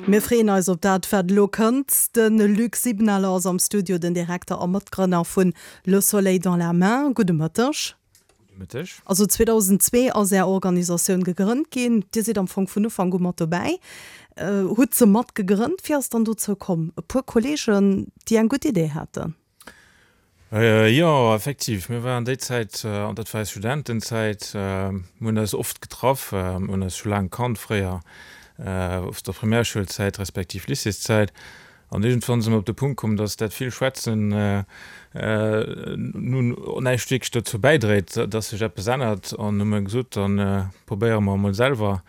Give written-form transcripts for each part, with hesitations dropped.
Mir freeën eis op dat, wat elo kënnt. De Luc Sibenaler ass am Studio, den Direkter a Matgrënner vun Le Soleil dans la main. Gudde Mëtteg. Gudde Mëtteg. Also 2002 ass Är Organisatioun gegrënnt ginn. Dir sidd am Fong vun Ufank u mat dobäi, hutt se mat gegrënnt. Wéi ass et dann dozou komm? E puer Kolleegen, déi eng gutt Idee haten? Jo, effektiv. Mir waren déi Zäit, an dat war eis Studentenzäit, mir hunn eis oft getraff, mir hunn eis scho laang kannt fréier, aus der Primärschoulzäit respektiv Lycéeszäit. An iergendwann si mer op de Punkt komm, dass dat vill Schwätzen nun näischt wierklech dozou bäidréit, dass sech eppes ännert. An hu mer gesot, da probéiere mer emol selwer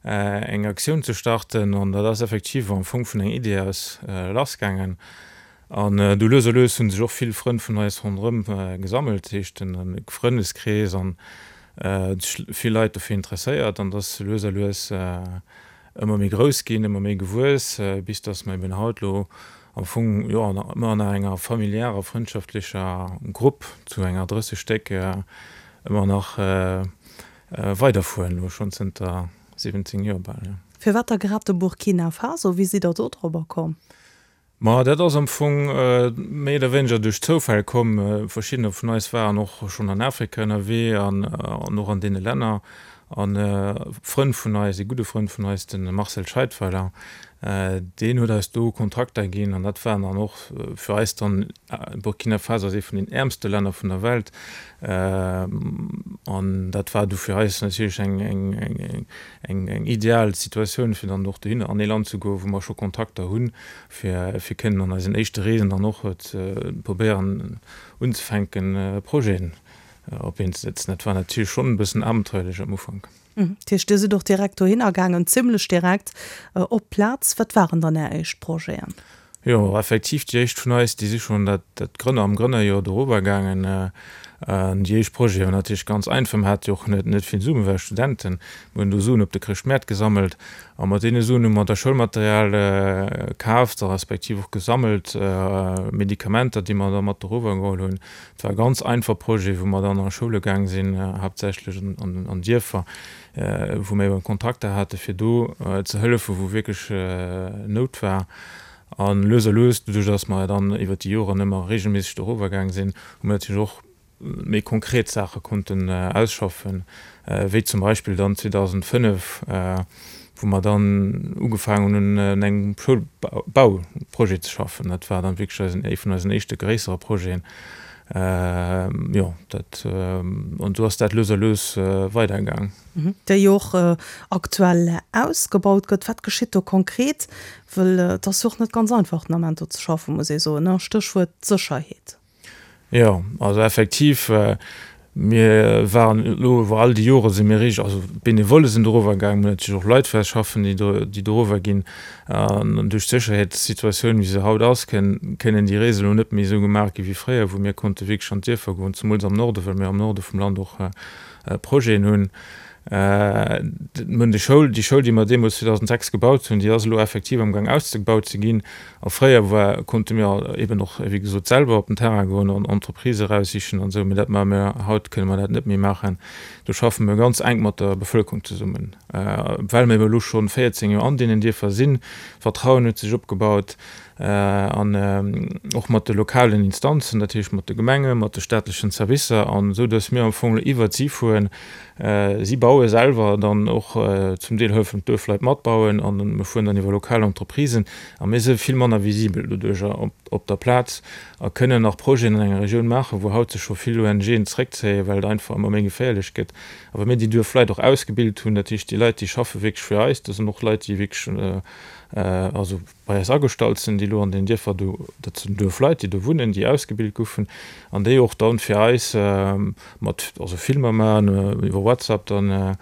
eng Aktioun ze starten. An dat ass effektiv am Fong vun enger Idee aus lassgaangen. An du lues a lues hunn sech och vill Frënn vun eis ronderëm gesammelt, dat heescht den Frëndeskrees an sech vill Leit dofir interesséiert an dass lues a lues ëmmer méi grouss ginn, ëmmer méi gewuess, bis dass mer eben haut lo am Fong, jo, ëmmer nach enger familiärer, frëndschaftlecher Grupp zu enger 30 Stéck ëmmer nach weiderfueren, lo schonn zënter 17 Joer bal, jo. Firwat da grad de Burkina Faso? Wéi sidd der do drobber komm? Ma dat ass am Fong méi oder wéineger duerch Zoufäll komm. Verschiddener vun eis waren och schonn an Afrika ënnerwee an och an deene Länner. An e Frënd vun eis, ee gudde Frënd vun eis, de Marcel Scheidweiler, deen huet eis do Kontakter ginn. An dat waren dann och fir eis dann, Burkina Faso ass ee vun den äermste Länner vun der Welt, an dat war du fir eis natierlech eng, eng ideal Situatioun fir dann och dohinner an ee Land ze goen, wou mer scho Kontakter hunn, fir fir kënnen an eisen éischte Reesen dann och ze probéieren unzefänken Projeten op Been ze setzen. Dat war natierlech schonn e bëssen abenteuerlech am Ufank. Dat heescht, Dir sidd och direkt dohinner gaangen, zimlech direkt op d'Plaz. Wat waren dann Är éischt Projeten? Jo, effektiv, déi éischt vun eis, déi si schonn dat, dat Grënner, am Grënnerjoer dorower gaangen. An déi éischt Projete waren natierlech ganz einfach, mer hate jo och net, net vill Suen, mir ware Studenten. Mir hunn do Suen op de Chrëschtmäert gesammelt a mat deene Suen hu mer da Schoulmaterial kaaft a respektiv och gesammelt, Medikamenter, déi mer da mat dorower geholl hunn. Et war e ganz einfach Projet, wou mer dann a Schoule gaang sinn, haaptsächlech an, an Dierfer, wou mir eben Kontakter hate fir do ze hëllefen, wou wierklech Nout war. A lues a lues, doduerch datt mer dann iwwer déi Joren ëmmer regelméisseg dorower gaang sinn, hu mir natierlech och méi konkret Saache konnten ausschaffen, wéi zum Beispill dann 2005, wou mer dann ugefaangen hunn un engem Schoulbauprojet ze schaffen. Dat war dann wierklech eisen, ee vun eisen éischte gréissere Projeten. Jo, dat, an esou ass dat lues a lues weidergaang. Déi jo och aktuell ausgebaut gëtt. Wat geschitt do konkret? Wëll et ass jo och net ganz einfach den Ament do ze schaffen, muss ee soen, ne? Stéchwuert Sécherheet. Jo, also effektiv, mir waren elo iwwer all déi Jore si mir richteg, also d'Benevolle sinn dorower gaangen, mir hunn natierlech och Leit fir eis schaffen, déi do, déi dorower ginn. An duerch d'Sécherheetssituatioun, wéi se haut ass, kënnen déi Reesen elo net méi esou gemaach gi wéi fréier, wou mir konnte wierklech an d'Dierfer goen, zemools am Norde, well mir am Norde vum Land och Projeten hunn. Mir hunn déi Schoul, déi Schoul, déi mer deemools 2006 gebaut hunn, déi ass elo effektiv amgaang ausgebaut ze ginn. A fréier war, konnte mir eben och, wéi gesot, selwer op den Terrain goen an Entreprisë eraussichen an esou, mee dat maache mir haut, kënne mer dat net méi maachen. Do schaffe mir ganz enk mat der Bevëlkerung zesummen, well mir eben elo scho 14 Joer an deenen Dierfer sinn. Vertrauen huet sech opgebaut an och mat de lokalen Instanzen, dat heescht mat de Gemengen, mat de staatlechen Servicer, an esou datt mir am Fong elo iwwert si fueren. Si baue selwer dann och zum Deel, hëllefen d'Duerfleit matbauen, an mir fueren dann iwwer lokal Entreprisen a mir si vill manner visibel doduercher op der Plaz a kënnen nach Projeten an enger Regioun maachen, wou haut sech scho vill ONGen zeréckzéien, well et einfach ëmmer méi geféierlech gëtt. A well mir déi Duerfleit och ausgebilt hunn, dat heescht déi Leit, déi schaffe wierklech fir eis, dat sinn och Leit, déi wierklech also bei eis agestallt sinn, déi elo an den Dierfer do, dat sinn Duerfleit, déi do wunnen, déi ausgebilt goufen an déi och dann fir eis mat, also Filmer maachen, iwwer WhatsApp dann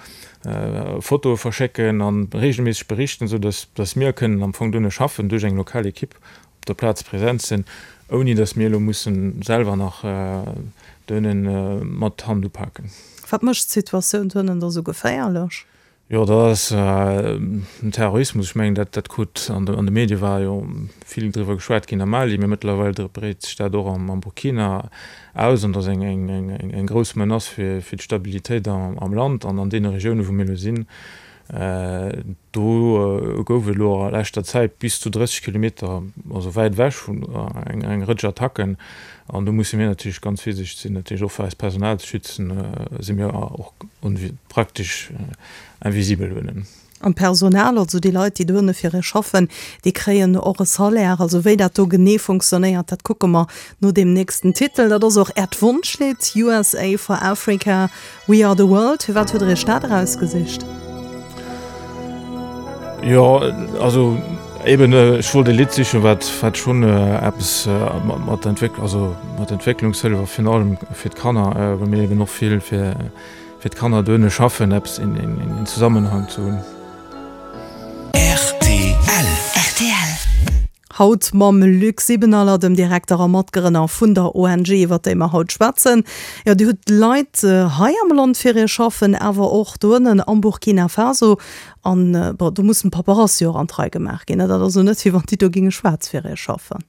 Fotoe verschécken an regelméisseg berichten, esou dass, dass mir kënnen am Fong duerno schaffen, duerch eng lokal Equipe op der Plaz präsent sinn, ouni dass mir elo mussen selwer nach duernen mat Hand upaken. Wat mécht d'Situatioun duernen da sou geféierlech? Jo, dat ass den Terrorismus. Ech mengen, dat krut an de Medie war jo vill driwwer geschwat ginn am Mali, mee mëttlerweil breet sech dat och am Burkina aus an dat ass eng grouss Menace fir d'Stabilitéit am Land an an deene Regiounen, wou mir elo sinn. Do gouf et elo a leschter Zäit bis zu 30 Kilometer, also wäit ewech vun eng Rëtsch Attacken. An do musse mir natierlech ganz virsiichteg sinn, natierlech och fir eist Personal ze schützen, si mir och praktesch invisibel dohinnen. An d'Personal, also déi Leit, déi dohinne fir ee schaffen, déi kréien och e Salaire. Also wéi dat do genee funktionéiert, dat kucke mer no deem nächsten Titel. Dat ass och Äert Wonschlidd, USA for Africa, We Are the World. Firwat hutt Der Iech dat erausgesicht? Jo, also eben, ech wollt e Lidd sichen, wat wat schonn eppes mat Entwéck-, also mat Entwécklungshëllef a virun allem fir d'Kanner, well mir eben och vill fir fir d'Kanner dohinne schaffen, eppes in in Zusammenhang ze hunn. Rtl. Rtl. Haut mam Luc Sibenaler, dem Direkter a Matgrënner vun der ONG, iwwer déi mer haut schwätzen. Jo, Dir hutt Leit hei am Land fir Iech schaffen, awer och doënnen am Burkina Faso. An, bon, do mussen d'Paperasse jo och an d'Rei gemaach ginn. Dat ass elo net, wéi wann déi do géinge schwaarz fir Iech schaffen.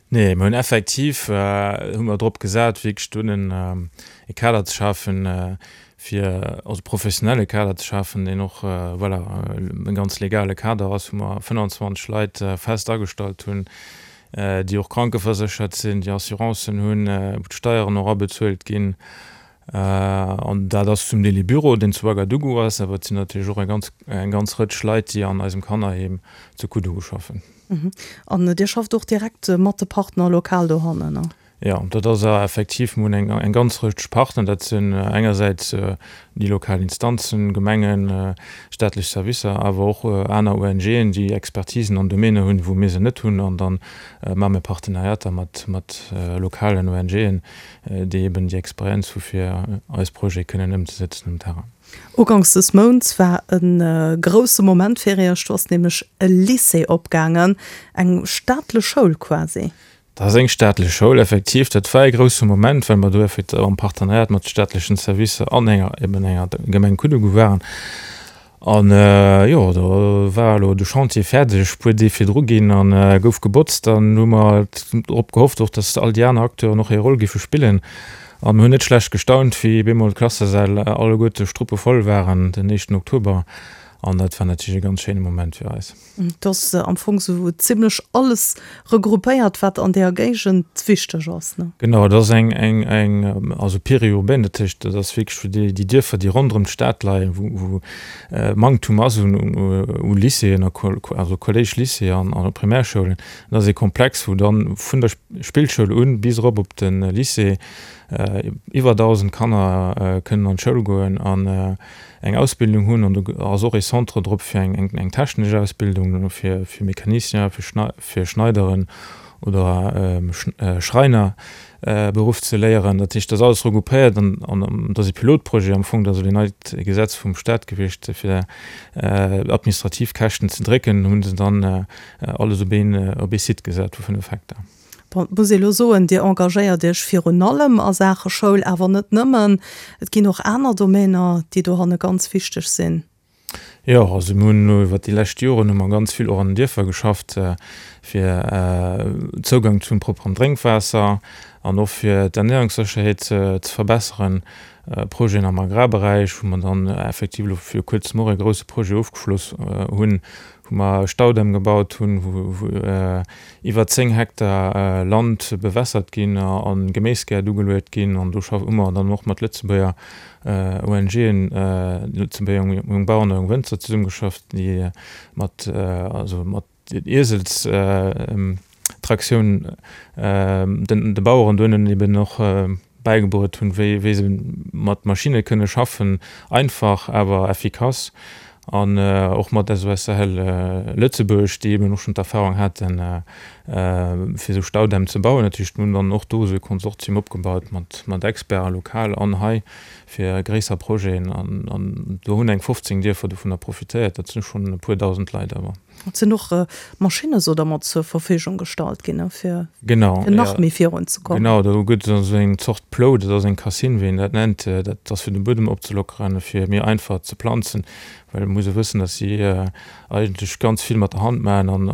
Nee, mir hunn effektiv, hu mer drop gesat, wierklech doënnen e Kader ze schafen, fir also professionelle Kader ze schafen, deen och, voilà, e ganz legale Kader ass, wou mer 25 Leit fest agestallt hunn, déi och krankeverséchert sinn, déi Assurancen hunn, wou d'Steieren och abezuelt ginn. An dat ass zum Deel ee Büro, deen zu Ouagadougou ass, awer et sinn natierlech och eng ganz, eng ganz Rëtsch Leit, déi an eisem Kannerheem zu Koudougou schaffen. An Dir schafft och direkt mat de Partner lokal dohannen, ne? Jo, dat ass effektiv, mir hunn eng eng ganz Rëtsch Partner. Dat sinn engersäits déi lokal Instanzen, Gemengen, staatlech Servicer, awer och aner ONGen, déi Expertisen an Domäne hunn, wou mir se net hunn. An da maache mir Partenariater mat mat lokalen ONGen, déi eben déi Experienz hu fir eis Projete kënnen ëmzesetzen um Terrain. Uganks des Mounts war e grousse Moment fir Iech, do ass nämlech e Lycée opgaangen, eng staatlech Schoul quasi. Dat ass eng staatlech Schoul, effektiv. Dat war e grousse Moment, well mer do effektiv am Partenariat mat de staatlechen Servicer an enger, eben enger Gemeng Koudougou waren. An, jo, do war elo de Chantier fäerdeg, puer Deeg virdru ginn a gouf gebotzt. Dann hu mer drop gehofft och, dass all déi aner Acteuren och hir Roll géife spillen. An mir hunn net schlecht gestaunt, wéi bemol d'Klassesäll alleguerte struppevoll waren den éischten Oktober. An dat war natierlech e ganz schéine Moment fir eis. Et ass am Fong sou zimlech alles regroupéiert, wat an deeër Géigend wichteg ass, ne? Genau, et ass eng, eng, eng, also périurbaine, dat heescht, dat ass wierklech fir déi, déi Dierfer, déi ronderëm d'Stad leien, wou, wou Manktum ass un, u Lycéeën a also Collège, Lycée an a Primärschoulen. Dat ass ee Komplex, wou dann vun der Spillschoul un bis erop op de Lycée iwwer 1.000 Kanner kënnen an d'Schoul goen an eng Ausbildung hunn an do ass och ee Centre drop fir eng eng technesch Ausbildung fir fir Mécanicien, fir Schnei fir Schneideren oder Schreiner Beruff ze léieren. Dat heescht, dat ass alles regroupéiert an an dat ass ee Pilotprojet am Fong, dat ass elo een neit Gesetz vum Staat gewiescht fir administrativ Käschten ze drécken, hunn se dann alles op een op ee Site gesat vu 5 Hektar. Bon, et muss ee lo soen, Dir engagéiert Iech virun allem a Saache Schoul, awer net nëmmen. Et ginn och aner Domainer, déi dohanne ganz wichteg sinn. Jo, also mir hunn elo iwwert déi lescht Joren hu mer ganz vill och an den Dierfer geschafft, fir Zougang zum propperen Drénkwaasser an och fir d'Ernährungssécherheet ze verbesseren. Projeten am Agrarberäich, wou mer dann effektiv elo viru kuerzem och e grouse Projet ofgeschloss hunn, wou mer e Staudamm gebaut hunn, wou iwwer 10 Hektar Land bewässert ginn a Geméisgäert ugeluet ginn. An do hu mer dann och mat Lëtzebuerger ONGen, Lëtzebuerger Jong Bauern a Jong Wënzer zesummegeschafft, déi mat, also mat Ieselstraktioun de Baueren dohennen eben och bäigebruet hunn, wéi wéi se mat Maschinne kënne schaffen, einfach awer effikass, an och mat SOS Sahel Lëtzebuerg, déi eben och schonn d'Erfahrung haten, fir esou Staudämm ze bauen. Dat heescht, mir hunn dann och do esou e Konsortium opgebaut mat mat Experten, lokal an hei, fir gréisser Projeten, an do hunn eng 15 Dierfer dovunner profitéiert. Dat sinn schonn e puer dausend Leit awer. Et sinn och Maschinne sou dermat zur Verfügung gestallt ginn, fir nach méi virun ze kommen. Genau, do gëtt et esou eng Zort Plou, dat ass eng Cassine, wéi een dat nennt. Dat ass fir de Buedem opzelockeren, fir méi einfach ze planzen, well et muss ee wëssen, datt si eigentlech ganz vill mat der Hand maachen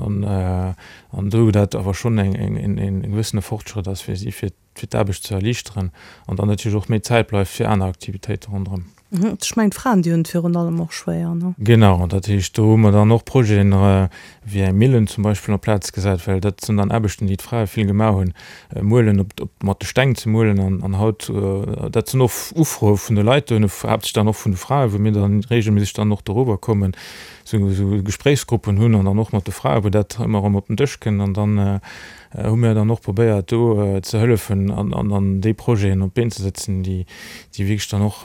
an do dat awer schonn en gewëssene Fortschrëtt ass fir si, fir fir d'Aarbecht ze erliichteren an dann natierlech och méi Zäit bleift fir aner Aktivitéite ronderëm. Ech mengen d'Fraen, déi hunn et virun allem och schwéier, ne? Genau, dat heescht, do hu mer dann och Projeten, wéi eng Millen zum Beispill en place gesat, well dat sinn dann Aarbechten, déi d'Frae vill gemaach hunn, muelen, op, op, mat de Steng ze muelen an, an haut, dat sinn och Ufroe vun de Leit dohinne, haaptsächlech dann och vun de Frae, wou mir dann regelméisseg dann och doriwwer kommen, sou, sou Gespréichsgruppen hunn an dann och mat de Frae, wou dat ëmmer erëm op den Dësch kënnt an dann hu mir dann och probéiert do ze hëllefen an, an dann déi Projeten op d'Been ze setzen, déi, déi wierklech dann och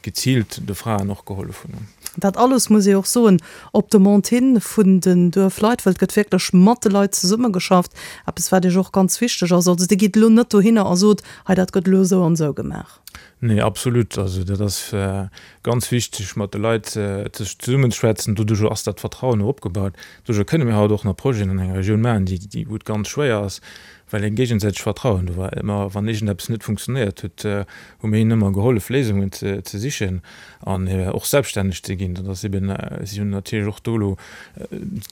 geziilt de Fraen och gehollef hunn. Dat alles, muss ee och soen, op Demande hin vun den Duerfleit, well et gëtt wierklech mat de Leit zesummegeschafft, eppes wat Iech och ganz wichteg ass. Also Dir gitt elo net dohinner a sot, hei dat gëtt elo esou an esou gemaach. Nee, absolut. Also dat ass ganz wichteg, mat de Leit zesummenzeschwätzen. Doduerch ass dat Vertrauen och opgebaut. Doduerch kënne mir haut och nach Projeten an enger Regioun maachen, déi, wou et ganz schwéier ass, well e géigesäitegt Vertrauen do war. Ëmmer wann iergendeppes net funktionéiert huet, hu mir hinnen ëmmer gehollef, Léisungen ze sichen an och selbststänneg ze ginn. Dat ass eben, si hunn natierlech och do elo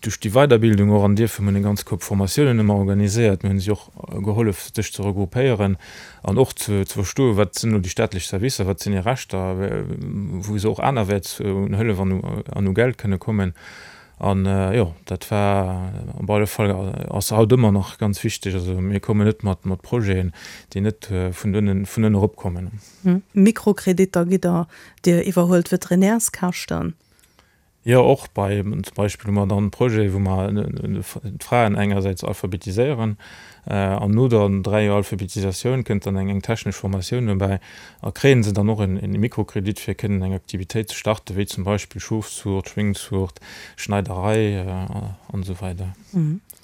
duerch déi Weiderbildung och an dierfe, mir hunn eng ganz Koup Formatiounen ëmmer organiséiert, mir hunn si och gehollef, sech ze regroupéieren an och ze verstoen, wat sinn elo déi staatlech Servicer, wat sinn hir Rechter, wou se och anerwäerts un Hëllef an u Geld kënne kommen. An jo, dat war op alle Fall, ass haut ëmmer nach ganz wichteg. Also mir kommen net mat mat Projeten, déi net vun ënnen vun ënnen erop kommen. Mikrokreditter gitt Der, Dir iwwerhuelt Veterinärskäschten. Jo, och bei, zum Beispill hu mer dann Projete wou mer d'Fraen engersäits alphabetiséieren an no der 3 Joer Alphabetisatioun kënnt dann eng eng technesch Formatioun dobäi a kréien se dann och en en Mikrokredit fir kënnen eng Aktivitéit ze starten, wéi zum Beispill Schofszuucht, Schwéngzuucht, Schneiderei an esou weider.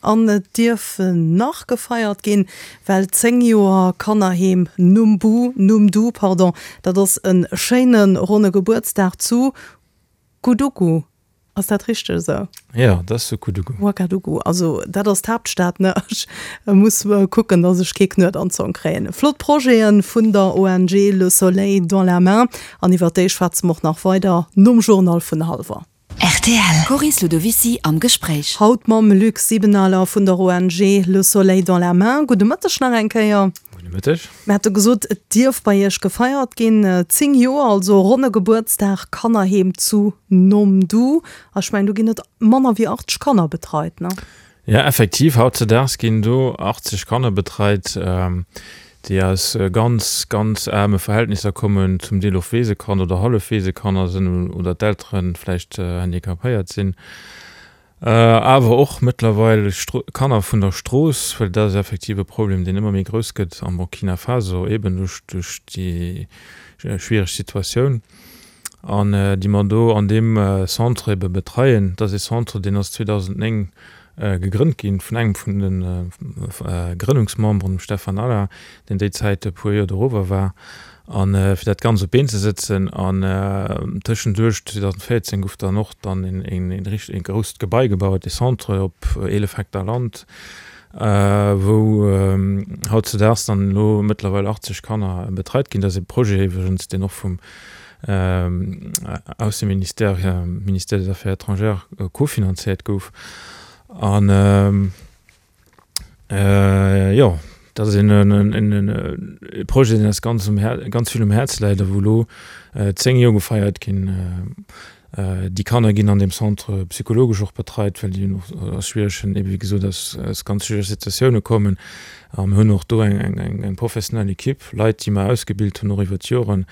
An et dierf nach gefeiert ginn, well 10 Joer Kannerheem Numbu, Numdu, pardon, dat ass e schéine ronne Gebuertsdag zu Koudougou. Ass dat richteg esou? Jo, dat ass zu Koudougou. Ouagadougou, also dat ass d'Haaptstad, ne? Ech muss kucken, datt ech kee Knuet an d'Zong kréien. Flott Projete vun der ONG Le Soleil dans la main an iwwer déi schwätze mer och nach weider nom Journal vun hallwer. Rtl. Coris Ludovicy am Gespréich. Haut mam Luc Sibenaler vun der ONG Le Soleil dans la main. Gudde Mëtteg nach eng Kéier. Gudde Mëtteg. Mir hate gesot, et dierf bei Iech gefeiert ginn. 10 Joer, also ronne Gebuertsdag, Kannerheem zu Nomdu. A ech mengen, do ginn net manner wéi 80 Kanner betreit, ne? Jo, effektiv, hautzedaags ginn do 80 Kanner betreit, déi aus ganz, ganz aarme Verhältnisser kommen, zum Deel och Weesekanner oder Hallefweesekanner sinn oder d'Eltere vläicht handicapéiert sinn. Awer och mëttlerweil Kanner vun der Strooss, well dat ass effektiv e Problem, deen ëmmer méi grouss gëtt am Burkina Faso, eeben duerch déi schwiereg Situatioun, an déi mer do an deem Centre ebe betreien. Dat ass ee Centre, deen ass 2009 gegrënnt ginn vun engem vun de Grënnungsmemberen, dem Stefan Allain, deen déi Zäit e puer Joer dorower war. A fir dat Ganzt op d'Been ze sëtzen. An tëschenduerch, 2014, gouf dann och dann een richteg, ee grousst Gebai gebaut, ee Centre op 11 Hektar Land, wou hautzedaags dann elo mëttlerweil 80 Kanner betreit ginn. Dat ass ee Projet iwwregens, deen och vum Ausseministère, Ministère des Affaires étrangères, cofinanzéiert gouf. An. Jo, dat ass een Projet, deen eis ganz um Här, ganz vill um Häerz läit a wou elo 10 Joer gefeiert ginn. Déi Kanner ginn an deem Centre psychologesch och betreit, well déi och aus schwieregen, ebe wéi gesot, aus aus ganz schwierege Situatioune kommen. A mir hunn och do eng eng eng professionell Equipe, Leit, déi mer ausgebilt hunn och iwwer d'Joren,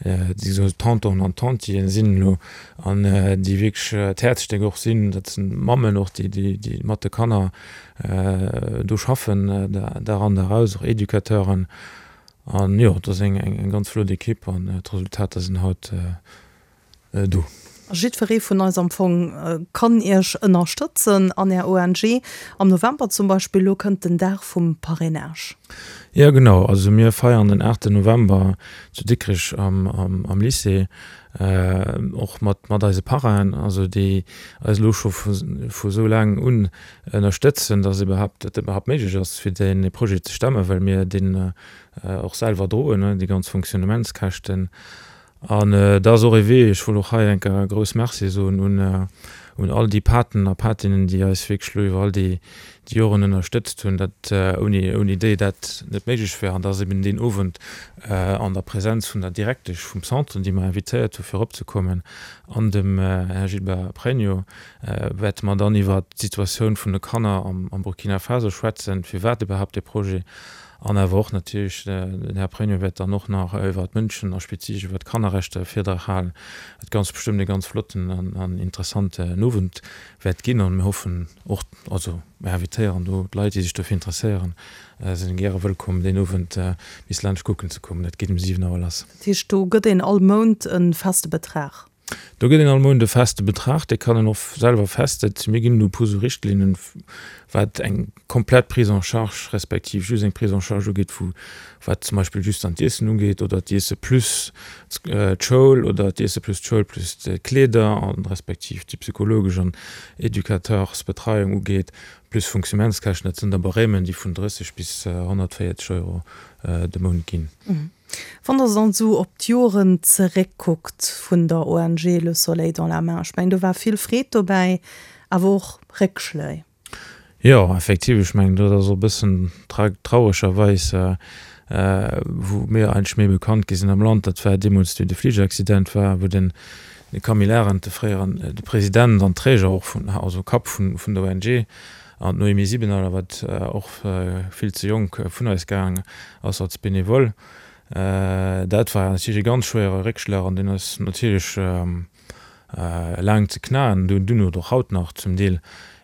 déi esou Tontonen an Tantien sinn elo an déi wierklech d'Häerzstéck och sinn. Dat sinn Mammen och, déi déi mat de Kanner do schaffen, Dag an Dag aus, och Educateuren. An jo, et ass eng ganz flott Ekipp an d'Resultater sinn haut do. A jiddweree vun eis am Fong kann Iech ënnerstëtzen an Är ONG. Am November zum Beispill, elo kënnt den Dag vum Parrainage. Jo genau, also mir feiern den 8 November zu Dikrech am Lycée och mat eise Parrainen, also déi eis elo scho vu sou laang un ënnerstëtzen, dass iwwerhaapt, dat iwwerhaapt méiglech ass, fir dee Projet ze stemmen, well mir deen och selwer droen, déi ganz Fonctionnementskäschten. An dat ass och ee Wee, ech wëll och hei eng Kéier e grouss Merci soen un un all déi Paten a Patinnen, déi eis wierklech elo iwwer all déi Joren ënnerstëtzt hunn, dat ouni ouni déi dat net méiglech wär. An da ass eben deen Owend an der Präsenz vun der Direktesch vum Centre, déi mer invitéiert hu fir eropzekommen, an dem Här Gilbert Pregno, wäerte mer dann iwwert d'Situatioun vun de Kanner am Burkina Faso schwätzen, firwat iwwerhaapt dee Projet, an awer och natierlech, den Här Pregno wäert dann och nach iwwert d'Mënschen a spezifesch iwwert d'Kannerrechter e Virdrag halen, wat ganz bestëmmt e ganz flotten an interessanten Owend wäert ginn. An mir hoffen och, also mir invitéieren do d'Leit, déi sech dofir interesséieren, sinn gäre wëllkomm, deen Owend bis laanscht kucken ze kommen. Dat geet um 7 Auer lass. Dat heescht, do gëtt een all Mount e feste Betrag? Do gëtt een all Mount e feste Betrag, dee kann een och selwer festsetzen. Mir ginn elo e puer sou Richtlinnen, wat eng komplett Prise en charge respektiv just eng Prise en charge ugeet, wou wat zum Beispill just dann d'Iessen ugeet oder d'Iesse plus d'Schoul oder d'Iesse plus d'Schoul plus d'Kleeder a respektiv déi psychologesch an Educateursbetreiung ugeet, plus Fonctionnementskäschten. Dat sinn da Barèmen, déi vun 30 bis 140 Euro de Mount ginn. Wann Der dann esou op d'Joren zeréckkuckt vun der ONG Le Soleil dans la Main, ech mengen do war vill Freed dobäi, awer och Réckschléi. Jo, effektiv, ech mengen dat ass och e bëssen trauregerweis, wou mir eigentlech méi bekannt gi sinn am Land, dat war deemools wéi de Fligeraccident war, wou den Camille Arendt, de fréieren, de President an Träger och vun, also Kapp vun der ONG, An d'Noémie Sibenaler, wat och vill ze jonk vun eis gaang ass als Benevole. Dat war natierlech e ganz schwéiere Réckschlag an deen ass natierlech laang ze knaen, dunn oder och haut nach zum Deel.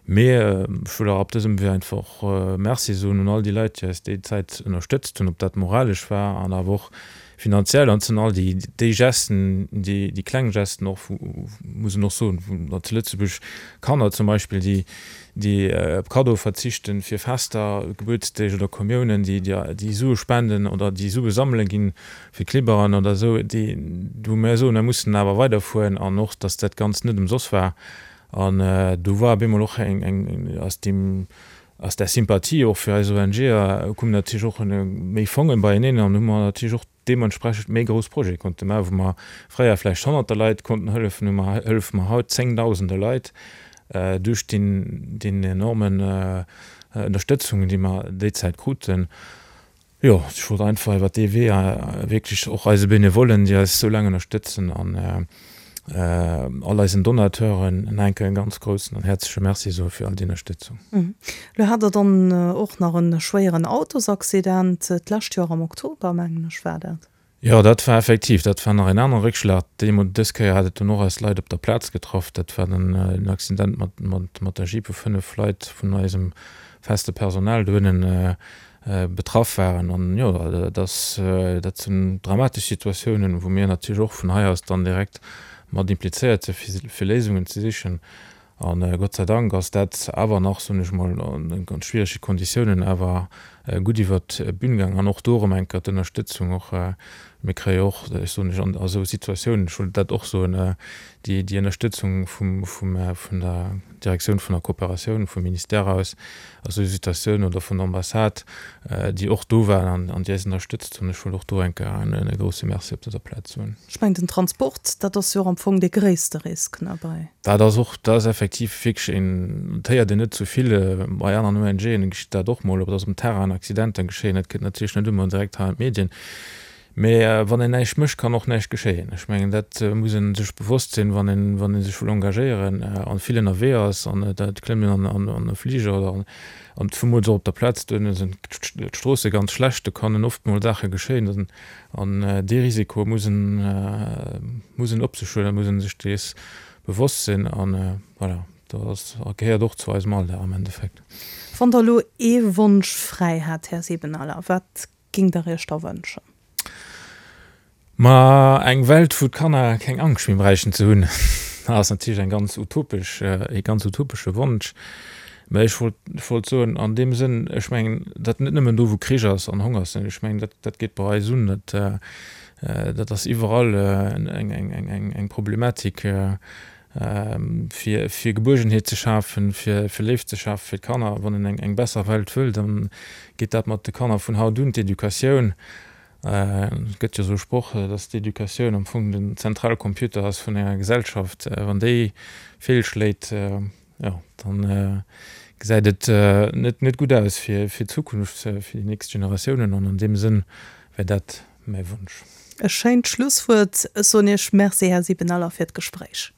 Mee ech wëll och op dësem Wee einfach Merci soen un all déi Leit, déi eis déi Zäit ënnerstëtzt hunn, ob dat moralesch war an awer och finanziell. An et sinn all déi déi Gesten, déi déi kleng Gesten och, muss een och soen, wou zu Lëtzebuerg Kanner zum Beispill, déi déi op Kaddoe verzichten fir Fester, Gebuertsdeeg oder Kommiounen, déi déi Sue spenden oder déi Sue sammele ginn fir Klibberen oder esou, déi wou mir soen, mir mussen awer weiderfueren an och, datt dat Ganzt net ëmsoss war. An do war op eemol och eng eng aus deem aus där Sympathie och fir eis ONGer koumen natierlech och méi Fongen beieneen an hu mer natierlech och deementsprechend méi grouss Projete konnte maachen, wou mer fréier vläicht Honnerter Leit konnten hëllefen, hu mer, hëllefe mer haut Zéngdausende Leit duerch deen, deen enormen Ënnerstëtzung, déi mer déi Zäit kruten. Jo, ech wollt einfach iwwer dee Wee wierklech och eise Benevollen, déi eis esou laang ënnerstëtzen an all eisen Donateuren nach eng Kéier e ganz groussen an häerzleche Merci soe fir all déi Ënnerstëtzung. Lo hat Der dann och nach e schwéieren Autosaccident, d'lescht Joer am Oktober, mengen ech, war dat. Jo, dat war effektiv, dat war nach en anere Réckschlag. Deemol, dës Kéier hat et dunn och eis Leit op der Plaz getraff. Dat war dann en Accident mat, mat, mat der Jeep, wou 5 Leit vun eisem feste Personal dohinnen betraff waren. An jo, dat ass, dat sinn dramatesch Situatiounen, wou mir natierlech och vun hei aus dann direkt mat implizéiert sinn, fir, fir Léisungen ze sichen. A Gott sei Dank ass dat awer nach, soen ech mol, an ganz schwierege Konditiounen awer gutt iwwert d'Bün gaangen. An och do erëm eng Kéier d'Ënnerstëtzung och, mir kréie och, ech soen lech, an esou Situatiounen, ech wollt dat och soen, déi, déi Ënnerstëtzung vum, vum, vun der Direktioun vun der Kooperatioun vum Ministère aus, a sou Situatiounen oder vun der Ambassade, déi och do waren an déi eis ënnerstëtzt hunn. Ech wëll och do eng Kéier e grouse Merci op dëser Plaz soen. Ech mengen, den Transport, dat ass jo och am Fong dee gréisste Risk, ne, bei. Dat ass och, dat ass effektiv wierklech een, dat héiert een net sou vill. Bei aneren ONGen geschitt dat och mol, ob dass um Terrain Accidenter geschéien, dat kënnt natierlech net ëmmer direkt hei an d'Medien. Mee wann een näischt mécht, kann och näischt geschéien. Ech mengen, dat muss ee sech bewosst sinn, wann een, wann ee sech wëll engagéieren a vill ënnerwee ass an et klëmmt een an an e Fliger oder an, an zemools och op der Plaz, duerno sinn d'Stroosse ganz schlecht, do kannen oft mol Saache geschéien an dee Risiko muss en, muss en op sech huelen, muss ee sech dees bewosst sinn an voilà, dat ass, gehéiert och zu eisem Alldag am Endeffekt. Wann Der elo ee Wonsch fräi hätt, Här Siebenaler, wat Ging der iech da wënschen? Ma eng Welt wou d'Kanner keng Angscht méi bräichten ze hunn, ass natierlech eng ganz utopesch, ee ganz utopesche Wonsch. Mä ech wollt, ech wollt soen an deem Sënn, ech mengen dat net nëmmen do wou Krich ass an Honger ass, ech mengen dat, dat geet bei eis un, dat, dat ass iwwerall eng, eng, eng, eng Problematik. Fir fir Gebuergenheet ze schafen, fir fir Léift ze schafen fir d'Kanner. Wann een eng eng besser Welt wëll, dann geet dat mat de Kanner vun haut un, d'Educatioun. Et gëtt jo esou e Sproch, dass d'Educatioun am Fong den Zentralcomputer ass vun enger Gesellschaft. Wann déi feelschléit, jo, dann gesäit et net net gutt aus fir fir d'Zukunft, fir déi nächst Generatiounen. An an deem Sënn wär dat mäi Wonsch. E schéint Schlusswuert. Ech soen Iech Merci, Här Sibenaler, fir d'Gespréich.